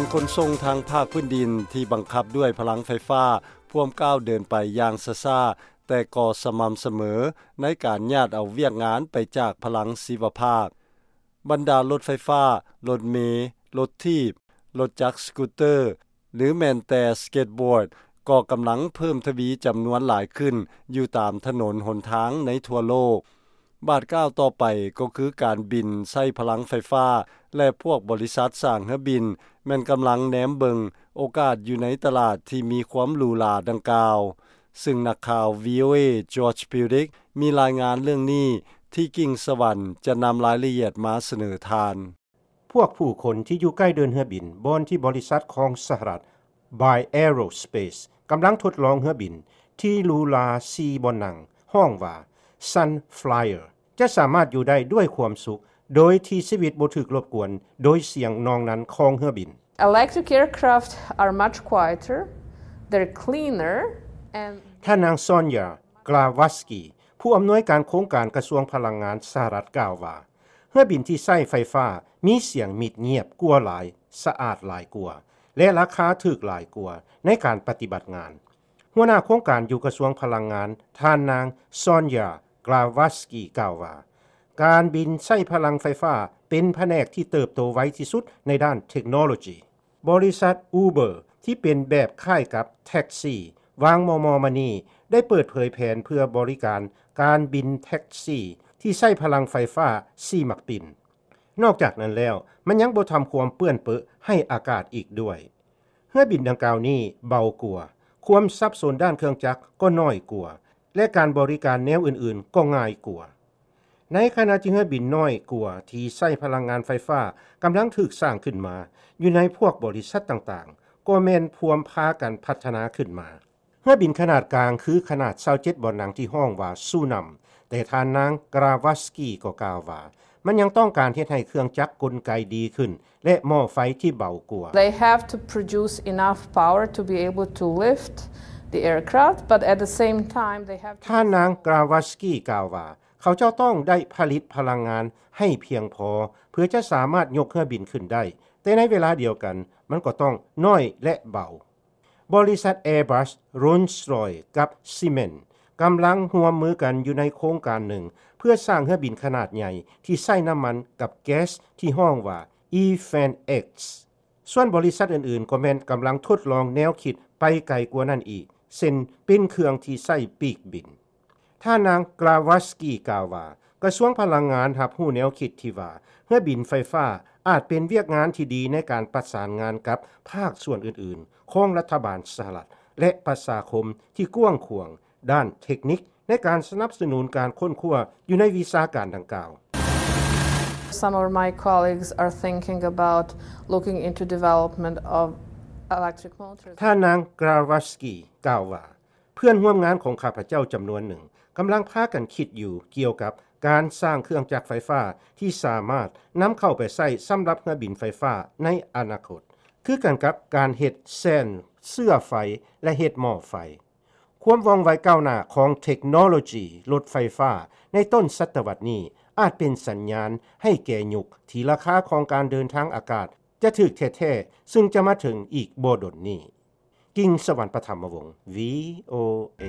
ຂົນສົ່ງທາງພາກພື້ນດິນທີ່ບັງຄັບດ້ວຍພະລັງໄຟຟ້າ ພວມກ້າວເດີນໄປຢ່າງຊ້າໆ ແຕ່ກໍສະໝ່ຳສະເໝີໃນການຍາດເອົາວຽກງານໄປຈາກພະລັງຊີວະພາບ. ບັນດາລົດໄຟຟ້າ, ລົດເມ, ລົດຖີບ, ລົດຈັກສະກູດເຕີ ຫຼືແມ່ນແຕ່ສະເກັດບອດ ກໍກຳລັງເພີ່ມທະວີຈຳນວນຫຼາຍຂຶ້ນຢູ່ຕາມຖະໜົນຫົນທາງໃນທົ່ວໂລກ. ບາດກ້າວຕໍ່ໄປກໍຄືການບິນໃຊ້ພະລັງໄຟຟ້າ ແລະ ພວກບໍລິສັດສ້າງເຮືອບິນແມ່ນກຳລັງແນມເບິ່ງໂອກາດຢູ່ໃນຕະຫຼາດທີ່ມີຄວາມຫຼູຫຼາດັ່ງກ່າວ, ຊຶ່ງນັກຂ່າວ ວີໂອເອ George Pudick ມີລາຍງານເລື່ອງນີ້ ທີ່ກິ່ງສະຫວັນຈະນຳລາຍລະອຽດມາສະເໜີທ່ານ. ພວກຜູ້ຄົນທີ່ຢູ່ໃກ້ເດີ່ນເຮືອບິນ ບ່ອນທີ່ບໍລິສັດຂອງສະຫະລັດ Bye Aerospace ກຳລັງທົດລອງເຮືອບິນທີ່ຫຼູຫຼາສີ່ບ່ອນນັ່ງ ຮ້ອງວ່າ Sunflyer ຈະສາມາດຢູ່ໄດ້ດ້ວຍຄວາມສຸກ ໂດຍທີ່ຊີວິດບໍ່ຖືກລົບກວນໂດຍສຽງນອງນັນຂອງເຮືອບິນ. Electric aircraft are much quieter, they're cleaner, and ທ່ານນາງ Sonya Glavarsky ຜູ້ອຳນວຍການໂຄງການກະຊວງພະລັງງານສະຫະລັດກ່າວວ່າ ເຮືອບິນທີ່ໃຊ້ໄຟຟ້າມີສຽງມິດງຽບກວ່າຫຼາຍ, ສະອາດຫຼາຍກວ່າ ແລະ ລາຄາຖືກຫຼາຍກວ່າໃນການປະຕິບັດງານ. ຫົວໜ້າໂຄງການຢູ່ກະຊວງພະລັງງານ ທ່ານນາງ Sonya Glavarsky ກ່າວວ່າ ການບິນໃຊ້ພະລັງໄຟຟ້າເປັນພະແນກທີ່ເຕີບໂຕໄວທີ່ສຸດໃນດ້ານເທັກໂນໂລຈີ. ບໍລິສັດ Uber ທີ່ເປັນແບບຄ້າຍກັບແທັກຊີ ວາງມໍ່ໆມານີ້ ໄດ້ເປີດເຜີຍແຜນເພື່ອບໍລິການການບິນແທັກຊີທີ່ໃຊ້ພະລັງໄຟຟ້າສີ່ໝາກປິ່ນ. ນອກຈາກນັ້ນແລ້ວ, ມັນຍັງບໍ່ທຳຄວາມເປື້ອນເປິໃຫ້ອາກາດອີກດ້ວຍ. ເຮືອບິນດັ່ງກ່າວນີ້ເບົາກວ່າ, ຄວາມສັບສົນດ້ານເຄື່ອງຈັກກໍນ້ອຍກວ່າ ແລະ ການບໍລິການແນວອື່ນໆກໍງ່າຍກວ່າ. ໃນຂະນະທີ່ເຮືອບິນນ້ອຍກວ່າທີ່ໃຊ້ພະລັງງານໄຟຟ້າກຳລັງຖືກສ້າງຂຶ້ນມາຢູ່ໃນພວກບໍລິສັດຕ່າງໆ ກໍແມ່ນພວມພາກັນພັດທະນາຂຶ້ນມາ. ເຮືອບິນຂະໜາດກາງຄືຂະໜາດຊາວເຈັດບ່ອນນັ່ງທີ່ຮ້ອງວ່າ Sunam, ແຕ່ທ່ານນາງ Glavarsky ກໍກ່າວວ່າ ມັນຍັງຕ້ອງການເຮັດໃຫ້ເຄື່ອງຈັກກົນໄກດີຂຶ້ນ ແລະ ໝໍ້ໄຟທີ່ເບົາກວ່າ. They have to produce enough power to be able to lift the aircraft, but at the same time they have to ທ່ານນາງ Glavarsky ກ່າວວ່າ ເຂົາເຈົ້າຕ້ອງໄດ້ຜະລິດພະລັງງານໃຫ້ພຽງພໍ ເພື່ອຈະສາມາດຍົກເຮືອບິນຂຶ້ນໄດ້, ແຕ່ໃນເວລາດຽວກັນ ມັນກໍຕ້ອງນ້ອຍ ແລະ ເບົາ. ບໍລິສັດ Airbus, Rolls-Royce ກັບ Siemens ກຳລັງຮ່ວມມືກັນຢູ່ໃນໂຄງການໜຶ່ງ ເພື່ອສ້າງເຮືອບິນຂະໜາດໃຫຍ່ທີ່ໃຊ້ນ້ຳມັນກັບແກັສທີ່ຮ້ອງວ່າ E-Fan X. ສ່ວນບໍລິສັດອື່ນໆ ກໍແມ່ນກຳລັງທົດລອງແນວຄິດໄປໄກກວ່ານັ້ນອີກ, ເຊັ່ນ ປິ່ນເຄື່ອງທີ່ໃຊ້ປີກບິນ. ທ່ານນາງ Glavarsky ກ່າວວ່າ ກະຊວງພະລັງງານຮັບຮູ້ແນວຄິດທີ່ວ່າ ເຮືອບິນໄຟຟ້າອາດເປັນວຽກງານທີ່ດີໃນການປະສານງານກັບພາກສ່ວນອື່ນໆຂອງລັດຖະບານສະຫະລັດ ແລະ ປະຊາຄົມທີ່ກວ້າງຂວາງດ້ານເທັກນິກ ໃນການສະໜັບສະໜູນການຄົ້ນຄວ້າຢູ່ໃນວິຊາການດັ່ງກ່າວ. Some of my colleagues are thinking about looking into development of electric motors. ທ່ານນາງ Glavarsky ກ່າວວ່າ ເພື່ອນຮ່ວມງານຂອງຂ້າພະເຈົ້າຈຳນວນໜຶ່ງກຳລັງພາກັນຄິດຢູ່ກ່ຽວກັບການສ້າງເຄື່ອງຈັກໄຟຟ້າທີ່ສາມາດນຳເຂົ້າໄປໃຊ້ສຳລັບເຮືອບິນໄຟຟ້າໃນອະນາຄົດ, ຄືກັນກັບການເຮັດແຊນເຊື້ອໄຟ ແລະ ເຮັດໝໍ້ໄຟ. ຄວາມວ່ອງໄວກ້າວໜ້າຂອງເທັກໂນໂລຈີລົດໄຟຟ້າໃນຕົ້ນສະຕະວັດນີ້ ອາດເປັນສັນຍານໃຫ້ແກ່ຍຸກທີ່ລາຄາຂອງການເດີນທາງອາກາດຈະຖືກແທ້ໆ ຊຶ່ງຈະມາເຖິງອີກບໍ່ດົນນີ້. ກິ່ງສະຫວັນ ປະຖຳມະວົງ ວີໂອເອ.